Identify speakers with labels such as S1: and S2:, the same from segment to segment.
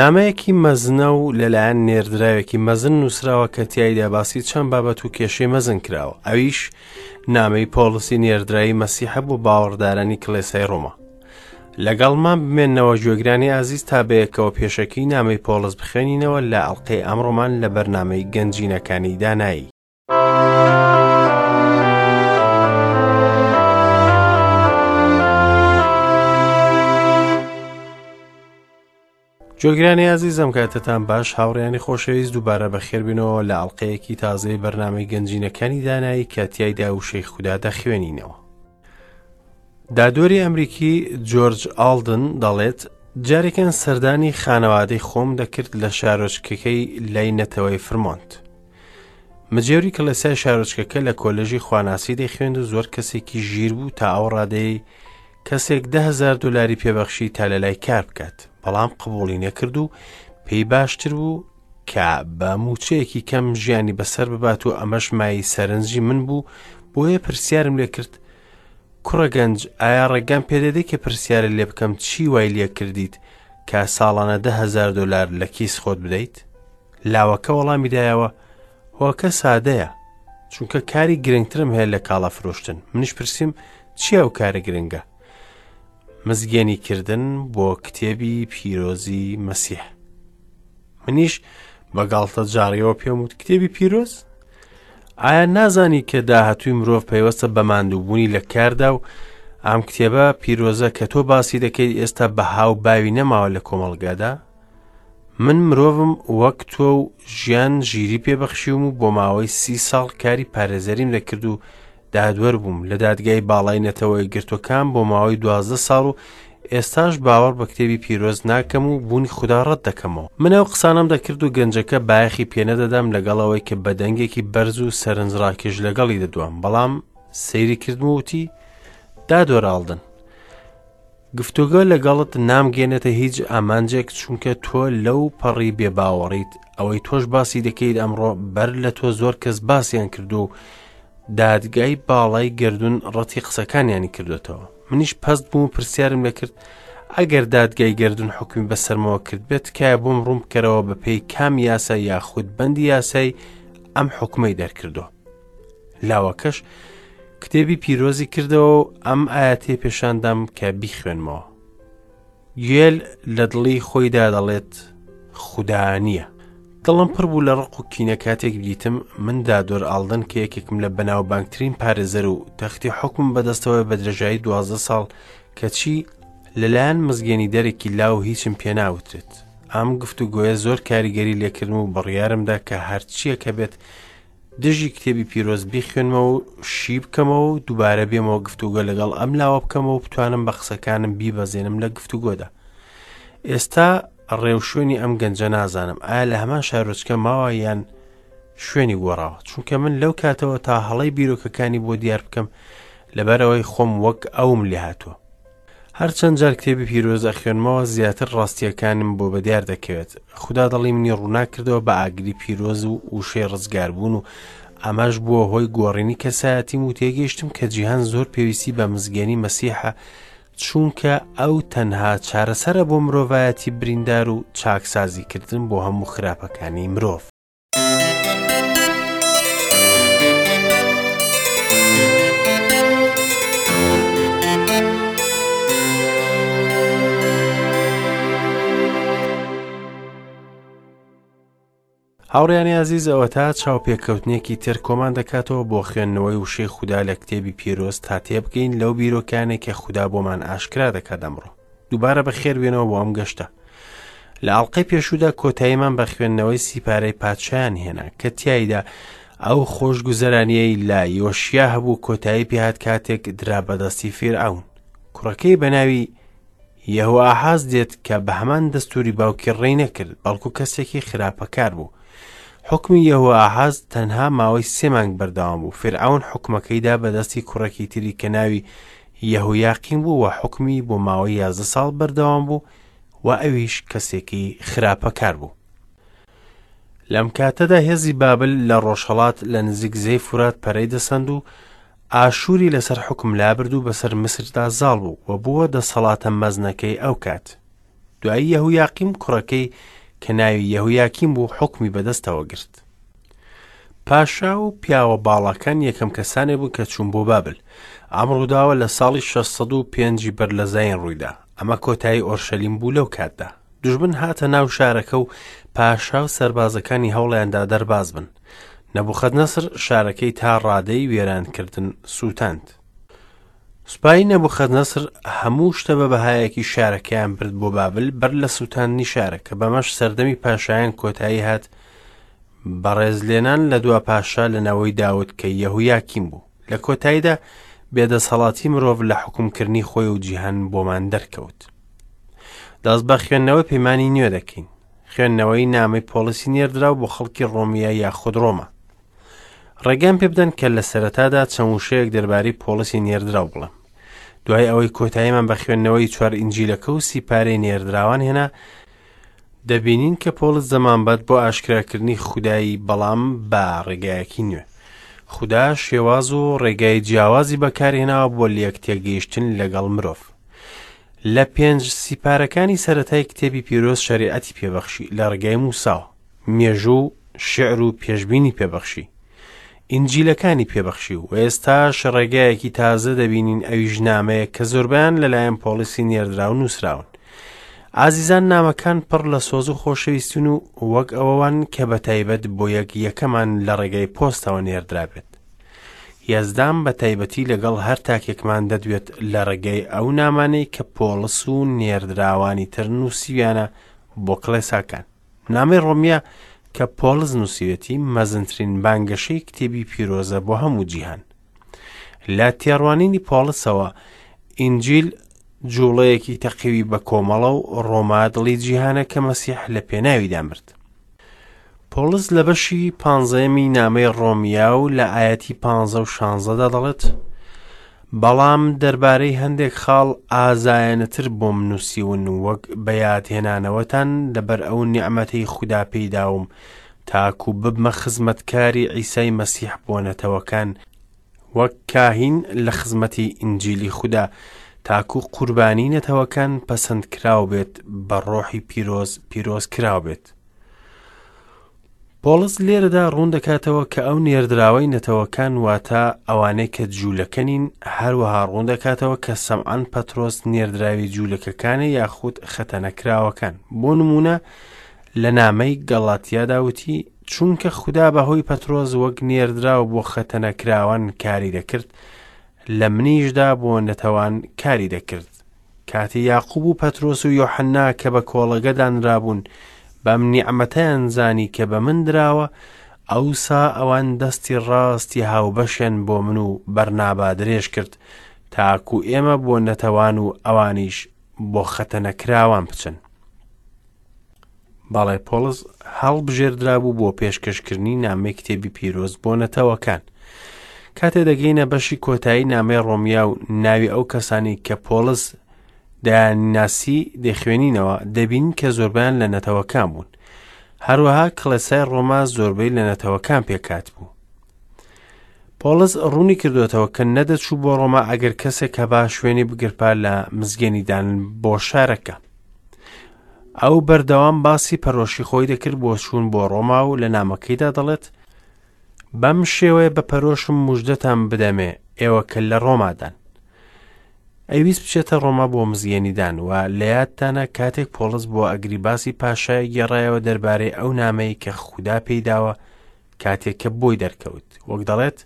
S1: نامەیەکی مەزنە و لەلایەن نێردراوێکی مەزن نووسراوە کە تیایدا باسی چەند بابەت و کێشەی مەزن کراوە، ئەویش نامەی پۆڵسی نێردراوی مەسیحە بۆ باوەڕدارانی کڵێسای ڕۆما. لەگەڵمان بمێنەوە گوێگرانی ئازیز تا بەیەکەوە پێشەکی نامەی پۆڵس بخوێنینەوە لە ئەڵقەی ئەمڕۆمان لە بەرنامەی گەنجینەکانی دانایی. گوێگرانی ئازیز ئەم کاتەتان باش هاوڕیانی خۆشەویست دووبارە بەخێربێنەوە لە ئەڵلقەیەکی تازەی بەرنامەی گەنجینەکانی دانایی کە تیایدا وشەی خودا دەخوێنینەوە. دادوەری ئەمریکی جۆرج ئاڵدن دەڵێت جارێکیان سەردانی خانەوادەی خۆم دەکرد لە شارۆچکەکەی لای نەتەوەی فرمۆنت. مجێوری کڵێسای شارۆچکەکە لە کۆلێژی خواناسی دەیخوێند و زۆر کەسێکی ژیر بوو تا ئەو ڕادەیەی کەسێک دههزار دلاری پێبەخشی تا لە لای کار بکات بەڵام قبوڵی نەکرد و پێی باشتر بوو کە بە موچەیەکی کەم ژیانی بەسەر ببات و ئەمەش مای سەرنجی من بوو بۆیە پرسیارم لێ کرد کوڕە گەنج ئایا ڕێگام پێدەدەی کە پرسیارە لێ بکەم چی وای لێ کردیت کە ساڵانە دههزار دلار لە کیس خۆت بدەیت؟ لاوەکە وەڵامی دایەوە هۆکە سادەیە چونکە کاری گرنگترم هەیە لە کاڵا فرۆشتن منیش پرسییم چی ئەو کارە گرنگە مزگێنی کردن بۆ کتێبی پیرۆزی مەسیح منیش بە گاڵتە جاڕیەوە پێم وت کتێبی پیرۆز ئایا نازانی کە داهاتووی مرۆڤ پەیوەستە بە ماندووبوونی لە کاردا و ئەم کتێبە پیرۆزە کە تۆ باسی دەکەیت ئێستا بەها و باوی نەماوە لە کۆمەڵگادا من مرۆڤم وەک تۆ و ژیان ژیری پێ بەخشیوم و بۆ ماوەی سی ساڵ کاری پارێزەریم دەکرد و دادوەر بووم لە دادگای باڵای نەتەوە یەکگرتووەکان بۆ ماوەی دوازدە ساڵ و ئێستاش باوەڕ بە کتێبی پیرۆز ناکەم و بوونی خودا ڕەت دەکەمەوە. من ئەو قسانەم دەکرد و گەنجەکە بایەخی پێنەدەدام لەگەڵ ئەوەی کە بە دەنگێکی بەرز و سەرنجڕاکێش لەگەڵی دەدوام بەڵام سەیری کردم و وتی دادوەر ئاڵدن گفتوگۆ لەگەڵت نامگەێنێتە هیچ ئامانجێک چونکە تۆ لەو پەڕی بێباوەڕیت ئەوەی تۆش باسی دەکەیت ئەمڕۆ بەر لە تۆ زۆر کەس باسیان کردو و دادگای باڵای گردون ڕەتی قسەکانیانی کردوێتەوە منیش پەست بوو و پرسیارم لێکرد ئەگەر دادگای گردون حکومی بەسەرمەوە کرد بێت تکایە بۆم ڕوون بکەرەوە بە پێی کام یاسا یاخود بەندی یاسای ئەم حکومەی دەرکردووە لاوەکەش کتێبی پیرۆزی کردەوە و ئەم ئاەتەی پێشاندام کە بیخوێنمەوە گوێل لە دڵی خۆیدا دەڵێت خودا نییە دڵم پڕ بوو لە ڕق و کینە کاتێک دیتم من دادۆر ئاڵدن کە یەکێکم لە بەناوبانگترین پارێزەر و تەختی حکوم بەدەستەوە بە درێژایی دوازدە ساڵ کەچی لەلایەن مزگێنی دەرێکی لاو هیچم پێناوترێت ئەم گفتوگۆیە زۆر کاریگەری لێکردم و بڕیارمدا کە هەرچیەکە بێت دژی کتێبی پیرۆز بیخوێنمەوە و شی بکەمەوە و دووبارە بێمەوە گفتوگۆ لەگەڵ ئەم لاوە بکەمەوە و بتوانم بە قسەکانم بیبەزێنم لە گفتوگۆدا ئێستا ڕێوشوێنی ئەم گەنجە نازانم ئایا لە هەمان شارۆچکە ماوە یان شوێنی گۆڕاوە چونکە من لەو کاتەوە تا هەڵەی بیرۆکەکانی بۆ دیار بکەم لەبەرەوەی خۆم وەک ئەوم لێهاتووە هەرچەند جار کتێبی پیرۆز ئەخوێنمەوە زیاتر ڕاستییەکانم بۆ بەدیار دەکەوێت خودا دڵی منی ڕووناک کردەوە بە ئاگری پیرۆز و وشەی ڕزگاربوون و ئەمەش بووە هۆی گۆڕینی کەسایەتیم و تێگەیشتم کە جیهان زۆر پێویستی بە مزگێنی مەسیحە چونکە ئەو تەنها چارەسەرە بۆ مرۆڤایەتی بریندار و چاکسازیکردن بۆ هەموو خراپەکانی مرۆڤ. هاوڕیانی ئازیز ئەوەتا چاوپێکەوتنێکی تر کۆمان دەکاتەوە بۆ خوێندنەوەی وشەی خودا لە کتێبی پیرۆز تا تێبگەین لەو بیرۆکانێک کە خودا بۆمان ئاشکرا دەکات ئەمڕۆ دووبارە بەخێر بێنەوە بۆ ئەم گەشتە لە ئەڵلقەی پێشوودا کۆتاییمان بە خوێندنەوەی سیپارەی پادشایان هێنا کە تیایدا ئەو خۆشگوزەرانیەی لە یۆشیا هەبوو کۆتایی پێهات کاتێک درا بەدەستی فیرعەون کوڕەکەی بە ناوی یەهۆئاحاز دێت کە بە هەمان دەستوری باوکی ڕێی نەکرد بەڵکو کەسێکی خراپەکار بوو حکمی یەهۆئاحاز تەنها ماوەی سێ مانگ بەردەوام بوو فیرعەون حکومەکەیدا بەدەستی کوڕێکی تری کە ناوی یەهۆیاقیم بوو و حوکمی بۆ ماوەی یازدە ساڵ بەردەوام بوو و ئەویش کەسێکی خراپەکار بوو. لەم کاتەدا هێزی بابل لە ڕۆژهەڵات لە نزیک زێی فورات پەرەی دەسەند و ئاشووری لەسەر حوکم لابرد و بەسەر میسردا زاڵ بوو و بووە دەسەڵاتە مەزنەکەی ئەو کات. دوایی یەهویاقیم کوڕەکەی کە ناوی یەهویاکیم بوو حوکمی بەدەستەوە گرت. پاشا و پیاوە باڵاکان یەکەم کەسانێک بوون کە چوون بۆ بابل. ئەم ڕووداوە لە ساڵی 605 بەر لە زایین ڕوویدا. ئەمە کۆتایی ئۆرشەلیم بوو لەو کاتدا. دوژمن هاتە ناو شارەکە و پاشا و سەربازەکانی هەوڵیاندا دەرباز بن. نەبوخەدنەسر شارەکەی تا ڕادەی وێرانکردن سووتاند. سوپای نەبوخەدنەسر هەموو شتە بە بەهایەکی شارەکەیان برد بۆ بابل بەر لە سووتاندنی شارەکە، بەمەش سەردەمی پاشایان کۆتایی هات بە ڕێزلێنان لە دوا پاشا لە نەوەی داود کە یەهویاکیم بوو. لە کۆتاییدا بێدەسەڵاتی مرۆڤ لە حوکمکردنی خۆی و جیهان بۆمان دەرکەوت. دەست بە خوێندنەوەی پەیمانی نوێ دەکەین. خوێندنەوەی نامەی پۆڵسی نێردراو بۆ خەڵکی ڕۆمیە یاخود ڕۆما. ڕێگەم پێ بدەن کە لە سەرەتادا چەند وشەیەک دەربارەی پۆڵسی نێردراو بڵێم. دوای ئەوەی کۆتاییمان بە خوێندنەوەی چوار ئینجیلەکە و سیپارەی نێردراوان هێنا، دەبینین کە پۆڵس دەمانبات بۆ ئاشکراکردنی خودایی بەڵام بە ڕێگایەکی نوێ. خودا شێواز و ڕێگای جیاوازی بەکارهێناوە بۆ لێک تێگەیشتن لەگەڵ مرۆڤ. لە پێنج سیپارەکانی سەرەتای کتێبی پیرۆز شەریعەتی پێبەخشی لە ڕێگای موساوە. مێژوو و شیعر و پێشبینی پێبەخشی. ئینجیلەکانی پێبەخشی و ئێستاش ڕێگایەکی تازە دەبینین ئەویش نامەیە کە زۆربەیان لەلایەن پۆڵیسی نێردراو نووسراون. ئازیزان نامەکان پڕ لە سۆز و خۆشەویستن و وەک ئەوەوان کە بە تایبەت بۆ یەک یەکەمان لە ڕێگای پۆستەوە نێردرابێت. یەزدان بە تایبەتی لەگەڵ هەر تاکێکمان دەدوێت لە ڕێگای ئەو نامانەی کە پۆڵس و نێردراوانی تر نووسیویانە بۆ کڵێساکان. نامەی ڕۆمیە کە پۆڵس نووسیوێتی مەزنترین بانگەشەی کتێبی پیرۆزە بۆ هەموو جیهان. لە تێڕوانینی پۆڵسەوە ئینجیل جوڵەیەکی تەقیوی بە کۆمەڵە و ڕۆما دڵی جیهانە کە مەسیح لە پێناویدا مرد. پۆڵس لە بەشی پانزەیەمی نامەی ڕۆمیا و لە ئایەتی پانزە و شانزەدا دەڵێت بەڵام دەربارەی هەندێک خاڵ ئازایانەتر بۆم نووسیون وەک بە یادهێنانەوەتان لەبەر ئەو نیعمەتەی خودا پێیداوم تاکو ببمە خزمەتکاری عیسای مەسیح بۆ نەتەوەکان وەک کاهین لە خزمەتی ئینجیلی خودا تاکو قوربانی نەتەوەکان پەسەندکراو بێت بە ڕۆحی پیرۆز پیرۆز کراو بێت. پۆڵس لێرەدا ڕوون دەکاتەوە کە ئەو نێردراوەی نەتەوەکان واتە ئەوانەی کە جوولەکە نین، هەروەها ڕوون دەکاتەوە کە سەمعان پەترۆس نێردراوی جوولەکەکانە یاخود خەتەنەکراوەکان. بۆ نموونە لە نامەی گەڵاتیادا وتی، چونکە خودا بەهۆی پەترۆس وەک نێردراو بۆ خەتەنەکراوان کاری دەکرد، لە منیشدا بۆ نەتەوان کاری دەکرد. کاتێ یاقوب و پەترۆس و یۆحەننا کە بە کۆڵەگە دانرابوون، بەم نیعمەتەیان زانی کە بە من دراوە، ئەوسا ئەوان دەستی ڕاستی هاوبەشیان بۆ من و بەرنابا درێژ کرد، تاکو ئێمە بۆ نەتەوان و ئەوانیش بۆ خەتەنەکراوان بچن. بەڵێ پۆڵس هەڵبژێردرابوو بۆ پێشکەشکردنی نامەی کتێبی پیرۆز بۆ نەتەوەکان. کاتێ دەگەینە بەشی کۆتایی نامەی ڕۆمیا و ناوی ئەو کەسانی کە پۆڵس دەیانناسی دەخوێنینەوە دەبینین کە زۆربیان لە نەتەوەکان بوون. هەروەها کڵێسای ڕۆما زۆربەی لە نەتەوەکان پێکات بوو. پۆڵس ڕوونی کردوێتەوە کە نەدەچوو بۆ ڕۆما ئەگەر کەسێک هەبا شوێنی بگرپا لە مزگێنیدان بۆ شارەکە. ئەو بەردەوام باسی پەرۆشی خۆی دەکرد بۆ چوون بۆ ڕۆما و لە نامەکەیدا دەڵێت بەم شێوەیە بە پەرۆشم مژدەتان بدەمێ ئێوە کە لە ڕۆمادان. ئەیویست بچێتە ڕۆما بۆ مزگێنیدان و لە یادتانە کاتێک پۆڵس بۆ ئەگریباسی پاشای گێڕایەوە دەربارەی ئەو نامەی کە خودا پێیداوە کاتێک کە بۆی دەرکەوت وەک دەڵێت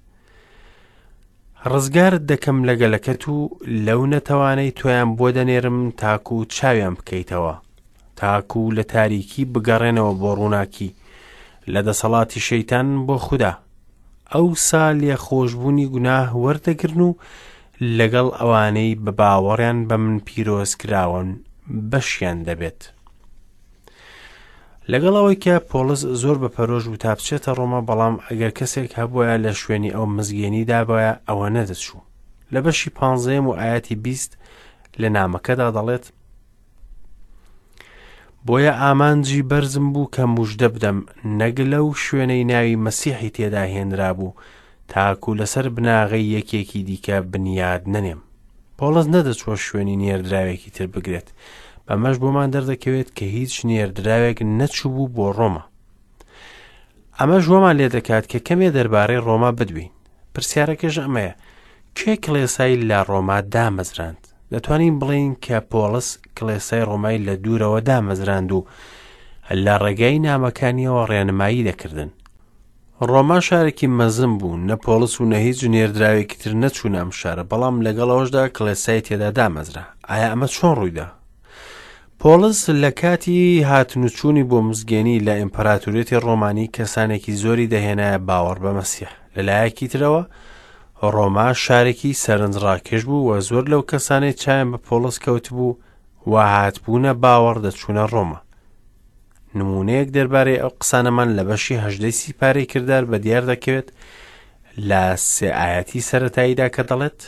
S1: ڕزگارت دەکەم لە گەلەکەت و لەو نەتەوانەی تۆیان بۆ دەنێرم تاکو و چاویان بکەیتەوە تاکو و لە تاریکی بگەڕێنەوە بۆ ڕووناکی لە دەسەڵاتی شەیتان بۆ خودا ئەوسا لێخۆشبوونی گوناه وەردەگرن و لەگەڵ ئەوانەی بە باوەڕیان بە من پیرۆز کراون بەشیان دەبێت. لەگەڵ ئەوەی کە پۆڵس زۆر بە پەرۆش بوو تا بچێتە ڕۆما بەڵام ئەگەر کەسێک هەبوایە لە شوێنی ئەو مزگێنی دابایە ئەوە نەدەچوو لە بەشی پانزەیەم و ئاەتی 20 لە نامەکەدا دەڵێت بۆیە ئامانجی بەرزم بوو کە مژدە بدەم نەک لەو شوێنەی ناوی مەسیحی تێدا هێنرابوو تاکو لەسەر بناغەی یەکێکی دیکە بنیاد نەنێم پۆڵس نەدەچووە شوێنی نێردراوێکی تر بگرێت، بەمەش بۆمان دەردەکەوێت کە هیچ نێردراوێک نەچووبوو بۆ ڕۆما. ئەمەش وامان لێ دەکات کە کەمێ دەربارەی ڕۆما بدوێین. پرسیارەکەش ئەمەیە، کێ کڵێسای لە ڕۆما دامەزراند؟ دەتوانین بڵێین کە پۆڵس کڵێسای ڕۆمای لە دوورەوە دامەزراند و لە ڕێگای نامەکانیەوە ڕێنمایی دەکردن. ڕۆما شارێکی مەزن بوو، نە پۆڵس و نە هیچ نێردراوێکی تر نەچوونە ئەم شارە، بەڵام لەگەڵ ئەوەشدا کڵێسای تێدا دامەزرا. ئایا ئەمە چۆن ڕوویدا؟ پۆڵس لە کاتی هاتن و چوونی بۆ مزگێنی لە ئیمپراتوریەتی ڕۆمانی کەسانێکی زۆری دەهێنایە باوەڕ بە مەسیح. لە لایەکی ترەوە ڕۆما شارێکی سەرنجڕاکێش بوو و زۆر لەو کەسانەی چایان بە پۆڵس کەوتبوو و هاتبوونە باوەڕ دەچوونە ڕۆما. نموونەیەک دەربارەی ئەو قسانەمان لە بەشی هەژدەی سیپارەی کردار بە دیار دەکەوێت لە سێ ئایەتی سەرەتاییدا کە دەڵێت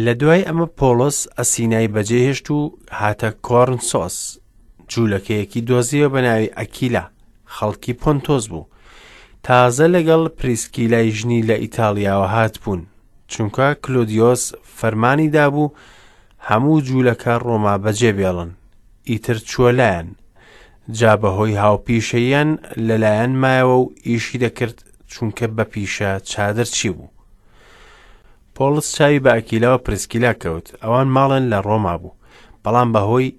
S1: لە دوای ئەمە پۆڵس ئەسینای بەجێهێشت و هاتە کۆرنسۆس جوولەکەیەکی دۆزیەوە بە ناوی ئەکیلا خەڵکی پۆنتۆس بوو تازە لەگەڵ پریسکیلای ژنی لە ئیتاڵیاوە هاتبوون چونکە کلودیۆس فەرمانی دابوو هەموو جوولەکە ڕۆما بەجێ بێڵن ئیتر چووە لایان جا بەهۆی هاوپیشەییان لەلایەن مایەوە و ئیشی دەکرد چونکە بە پیشە چادرچی بوو. پۆڵس چاوی بە ئەکیلا و پرسکیلا کەوت، ئەوان ماڵیان لە ڕۆما بوو، بەڵام بەهۆی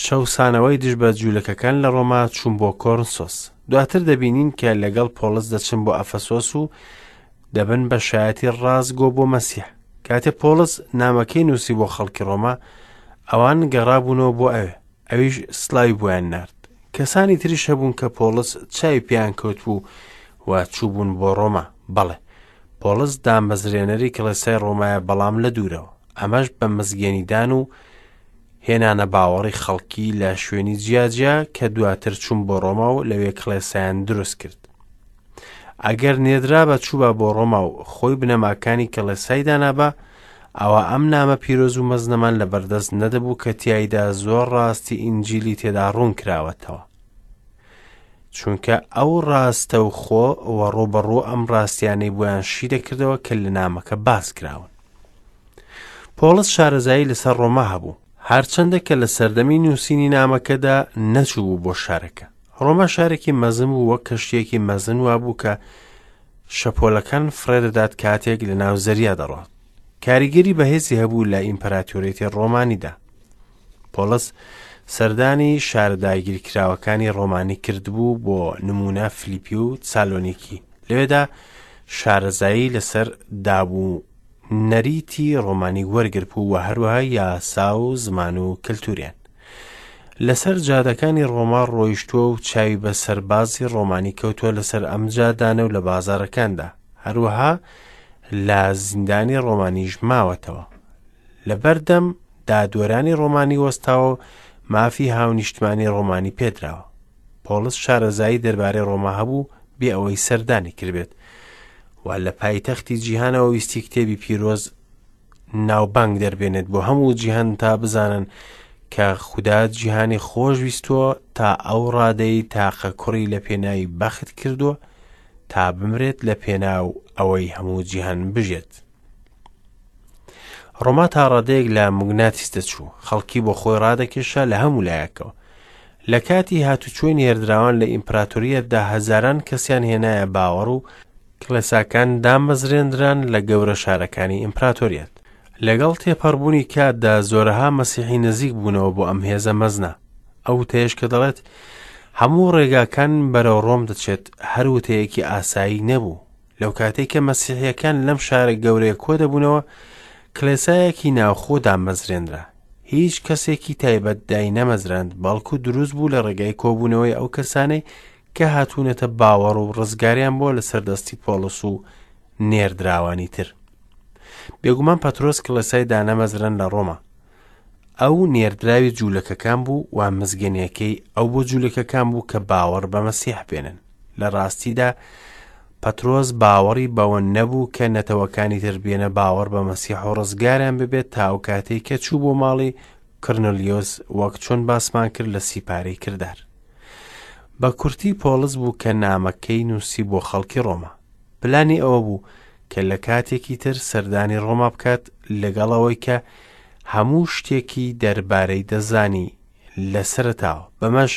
S1: چەوسانەوەی دژ بە جوولەکەکان لە ڕۆما چوون بۆ کۆرنسۆس. دواتر دەبینین کە لەگەڵ پۆڵس دەچن بۆ ئەفەسۆس و دەبن بە شایەتی ڕاستگۆ بۆ مەسیح. کاتێ پۆڵس نامەکەی نووسی بۆ خەڵکی ڕۆما، ئەوان گەڕابوونەوە بۆ ئەوێ، ئەویش سڵاوی بۆیان نارد. کەسانی تریش هەبوون کە پۆڵس چاوی پێیان کەوتبوو و چووبوون بۆ ڕۆما. بەڵێ، پۆڵس دامەزرێنەری کڵێسای ڕۆمایە بەڵام لە دوورەوە. ئەمەش بە مزگێنیدان و هێنانە باوەڕی خەڵکی لە شوێنی جیاجیا کە دواتر چوون بۆ ڕۆما و لەوێ کڵێسایان دروست کرد. ئەگەر نێردرابا چووبا بۆ ڕۆما و خۆی بنەماکانی کڵێسای دانابا، ئەوا ئەم نامە پیرۆز و مەزنەمان لەبەردەست نەدەبوو کە تیایدا زۆر ڕاستی ئینجیلی تێدا ڕوون کراوەتەوە. چونکە ئەو ڕاستەوخۆ و ڕووبەڕوو ئەم ڕاستیانەی بۆیان شی دەکردەوە کە لە نامەکە باس کراون. پۆڵس شارەزایی لەسەر ڕۆما هەبوو، هەرچەندە کە لە سەردەمی نووسینی نامەکەدا نەچووبوو بۆ شارەکە. ڕۆما شارێکی مەزن بوو وەک کەشتییەکی مەزن وابوو کە شەپۆلەکان فڕێ دەدات کاتێک لە ناو زەریا دەڕۆت. کاریگەری بەهێزی هەبوو لە ئیمپراتۆریەتی ڕۆمانیدا. پۆڵس سەردانی شارە داگیرکراوەکانی ڕۆمانی کردبوو بۆ نموونە فلیپی و سالۆنیکی. لەوێدا شارەزایی لەسەر داب و نەریتی ڕۆمانی وەرگربوو و هەروەها یاسا و زمان و کەلتوریان. لەسەر جادەکانی ڕۆما ڕۆیشتووە و چاوی بە سەربازی ڕۆمانی کەوتووە لەسەر ئەم جادانە و لە بازارەکاندا. هەروەها لە زیندانی ڕۆمانیش ماوەتەوە. لە بەردەم دادوەرانی ڕۆمانی وەستاوە و مافی هاونیشتمانی ڕۆمانی پێدراوە. پۆڵس شارەزایی دەربارەی ڕۆما هەبوو بێ ئەوەی سەردانی کردبێت و لە پایتەختی جیهانەوە ویستی کتێبی پیرۆز ناوبانگ دەربێنێت بۆ هەموو جیهان تا بزانن کە خودا جیهانی خۆش ویستووە تا ئەو ڕادەی تاقە کوڕی لە پێناوی بەخت کردووە تا بمرێت لە پێناو ئەوەی هەموو جیهان بژێت. ڕۆما تا ڕادەیەک لە موگناتیس دەچوو، خەڵکی بۆ خۆی ڕادەکێشا لە هەموو لایەکەوە. لە کاتی هاتوچۆی نێردراوان لە ئیمپراتۆریەتدا هەزاران کەسیان هێنایە باوەڕ و کڵێساکان دامەزرێندران لە گەورە شارەکانی ئیمپراتۆریەت. لەگەڵ تێپەڕبوونی کاتدا زۆرەها مەسیحی نزیک بوونەوە بۆ ئەم هێزە مەزنە. ئەو وتەیەش کە دەڵێت هەموو ڕێگاکان بەرەو ڕۆم دەچێت هەر وتەیەکی ئاسایی نەبوو. لەو کاتەی کە مەسیحیەکان لەم شارە گەورەیە کۆ دەبوونەوە، کڵێسایەکی ناوخۆ دامەزرێنرا. هیچ کەسێکی تایبەت داینەمەزراند، بەڵکو دروست بوو لە ڕێگای کۆبوونەوەی ئەو کەسانەی کە هاتوونەتە باوەڕ و ڕزگاریان بووە لەسەر دەستی پۆڵس و نێردراوانی تر. بێگومان پەترۆس کڵێسای دانەمەزران لە ڕۆما. ئەو نێردراوی جوولەکەکان بوو و مزگێنیەکەی ئەو بۆ جوولەکەکان بوو کە باوەڕ بە مەسیح بێنن. لە ڕاستیدا پەترۆس باوەڕی بەوە نەبوو کە نەتەوەکانی تر بێنە باوەڕ بە مەسیح و ڕزگاریان ببێت تا ئەو کاتەی کە چوو بۆ ماڵی کڕنلیۆس وەک چۆن باسمان کرد لە سیپارەی کردار. بە کورتی پۆڵس بوو کە نامەکەی نووسی بۆ خەڵکی ڕۆما. پلانی ئەوە بوو کە لە کاتێکی تر سەردانی ڕۆما بکات لەگەڵ ئەوەی کە هەموو شتێکی دەربارەی دەزانی لە سەرەتاوە، بەمەش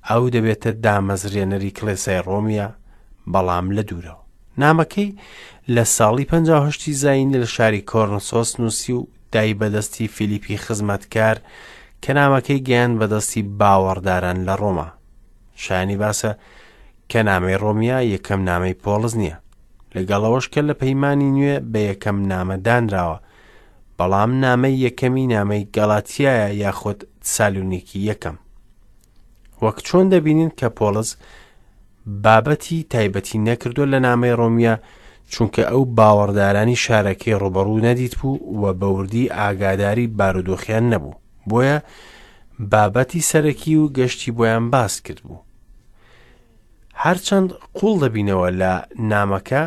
S1: ئەو دەبێتە دامەزرێنەری کڵێسای ڕۆمیە بەڵام لە دوورەوە. نامەکەی لە ساڵی 58 زایینی لە شاری کۆرنسۆس نووسی و دای بەدەستی فیلیپی خزمەتکار کە نامەکەی گەیاند بەدەستی باوەڕداران لە ڕۆما. شایانی باسە کە نامەی ڕۆمیا یەکەم نامەی پۆڵس نییە. لەگەڵ ئەوەش کە لە پەیمانی نوێ بە یەکەم نامە دانراوە، بەڵام نامەی یەکەمی نامەی گەڵاتیایە یاخود تسالونیکی یەکەم. وەک چۆن دەبینین کە پۆڵس بابەتی تایبەتی نەکردووە لە نامەی ڕۆمیا چونکە ئەو باوەڕدارانی شارەکەی ڕوبەڕوو نەدیت بوو و بەوردی ئاگاداری بارودۆخیان نەبوو بۆیە بابەتی سەرەکی و گەشتی بۆیان باس کرد بوو هەرچەند قوڵ دەبینەوە لە نامەکە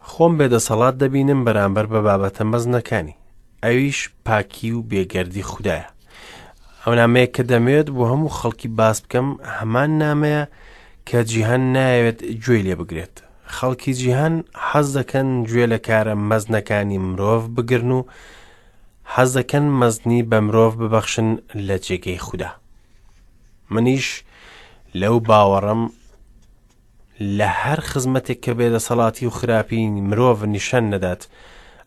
S1: خۆم بێدەسەڵات دەبینم بەرامبەر بە بابەتە مەزنەکانی ئەویش پاکی و بێگەردی خودایە ئەو نامەیە کە دەمەوێت بۆ هەموو خەڵکی باس بکەم هەمان نامەیە کە جیهان نایەوێت گوێی لێ بگرێت خەڵکی جیهان حەز دەکەن گوێ لە کارە مەزنەکانی مرۆڤ بگرن و حەز دەکەن مەزنی بە مرۆڤ ببەخشن لە جێگەی خودا منیش لەو باوەڕم لە هەر خزمەتێک کە بێدەسەڵاتی و خراپی مرۆڤ نیشان نەدات،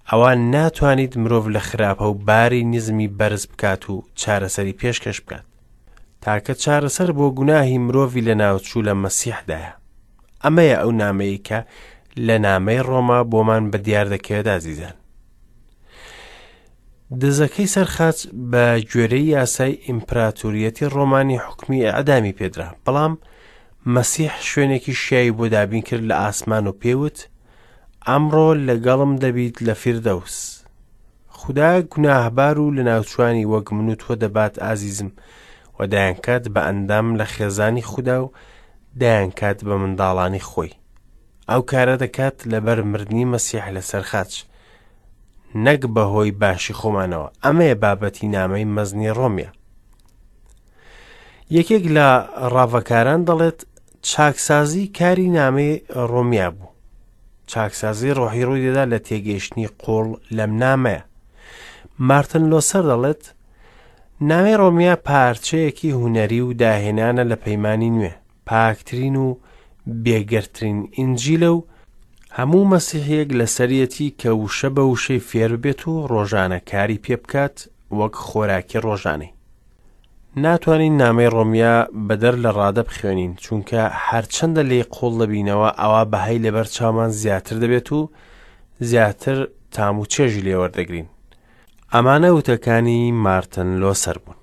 S1: ئەوا ناتوانیت مرۆڤ لە خراپە و باری نزمی بەرز بکات و چارەسەری پێشکەش بکات. تاکە چارەسەر بۆ گوناهی مرۆڤی لەناوچوو لە مەسیحدایە. ئەمەیە ئەو نامەیە کە لە نامەی ڕۆما بۆمان بە دیار دەکەوێت ئازیزان. دزەکەی سەر خاچ بە گوێرەی یاسای ئیمپراتوریەتی ڕۆمانی حوکمی ئیعدامی پێدرا، بەڵام مەسیح شوێنێکی شیاوی بۆ دابین کرد لە ئاسمان و پێی وت، ئەمڕۆ لەگەڵم دەبیت لە فیردەوس. خودا گوناهبار و لەناوچوانی وەک من و تۆ دەبات ئازیزم و دەیانکات بە ئەندام لە خێزانی خودا و دەیانکات بە منداڵانی خۆی. ئەو کارە دەکات لەبەر مردنی مەسیح لەسەر خاچ. نەک بەهۆی باشی خۆمانەوە ئەمەیە بابەتی نامەی مەزنی ڕۆمیە یەکێک لە ڕاڤەکاران دەڵێت چاکسازی کاری نامەی ڕۆمیا بوو چاکسازی ڕۆحی ڕووی دەدا لە تێگەیشتنی قوڵ لەم نامەیە مارتن لۆسەر دەڵێت نامەی ڕۆمیا پارچەیەکی هونەری و داهێنانە لە پەیمانی نوێ پاکترین و بێگەردترین ئینجیلە و هەموو مەسیحیەک لەسەریەتی کە وشە بە وشەی فێر ببێت و ڕۆژانە کاری پێ بکات وەک خۆراکی ڕۆژانەی. ناتوانین نامەی ڕۆمیا بەدەر لە ڕادە بخوێنین چونکە هەرچەندە لێی قوڵ دەبینەوە ئەوا بەهای لەبەر چاومان زیاتر دەبێت و زیاتر تام و چێژی لێوەردەگرین. ئەمانە وتەکانی مارتن لۆسەر بوون.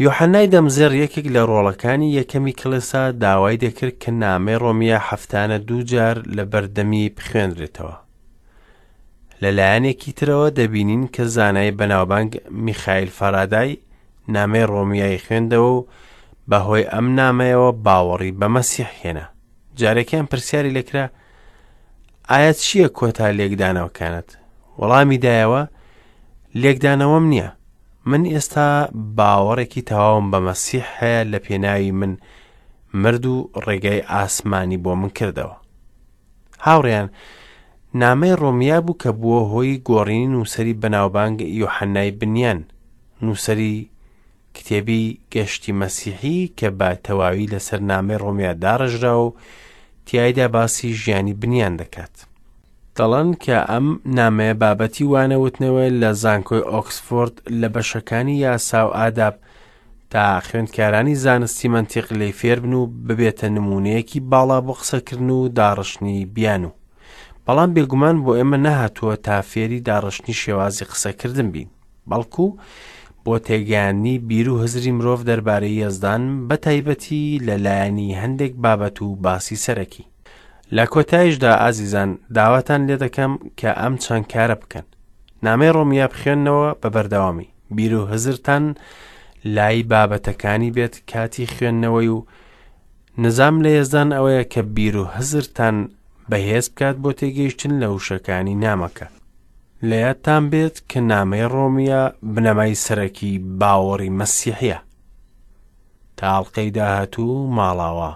S1: یۆحەنای دەمزێڕ یەکێک لە ڕۆڵەکانی یەکەمی کڵێسا داوای دەکرد کە نامەی ڕۆمیە هەفتانە دوو جار لە بەردەمی بخوێنرێتەوە. لە لایەنێکی ترەوە دەبینین کە زانای بەناوبانگ میخایل فارادای نامەی ڕۆمیای خوێندەوە و بەهۆی ئەم نامەیەوە باوەڕی بە مەسیح هێنا. جارێکیان پرسیاری لێکرا ئایا چییە کۆتا لێکدانەوەکانت؟ وەڵامی دایەوە لێکدانەوەم نییە من ئێستا باوەڕێکی تەواوم بە مەسیح هەیە لە پێناوی من مرد و ڕێگای ئاسمانی بۆ من کردەوە هاوڕیان نامەی ڕۆمیا بوو کە بووە هۆی گۆڕینی نووسەری بەناوبانگ یۆحەنای بنیان نووسەری کتێبی گەشتی مەسیحی کە بە تەواوی لەسەر نامەی ڕۆمیا داڕێژراوە و تیایدا باسی ژیانی بنیان دەکات. دەڵێن کە ئەم نامەیە بابەتی وانەوتنەوەیە لە زانکۆی ئۆکسفۆرد لە بەشەکانی یاسا و ئاداب تا خوێندکارانی زانستی مەنتیق لێی فێربن و ببێتە نموونەیەکی باڵا بۆ قسەکردن و داڕشتنی بیانوو. بەڵام بێگومان بۆ ئێمە نەهاتووە تا فێری داڕشتنی شێوازی قسەکردن بین. بەڵکو بۆ تێگەیاندنی بیر و هزری مرۆڤ دەربارەی یەزدان بە تایبەتی لە لایەنی هەندێک بابەت و باسی سەرەکی. لە کۆتایشدا ئازیزان داواتان لێ دەکەم کە ئەم چەند کارە بکەن. نامەی ڕۆمیا بخوێننەوە بە بەردەوامی، بیر و هزرتان لای بابەتەکانی بێت کاتی خوێندنەوەی و نزام لە یەزدان ئەوەیە کە بیر و هزرتان بەهێز بکات بۆ تێگەیشتن لە وشەکانی نامەکە. لە یادتان بێت کە نامەی ڕۆمیە بنەمای سەرەکی باوەڕی مەسیحیە. تا ئەڵقەی داهاتوو ماڵاوا.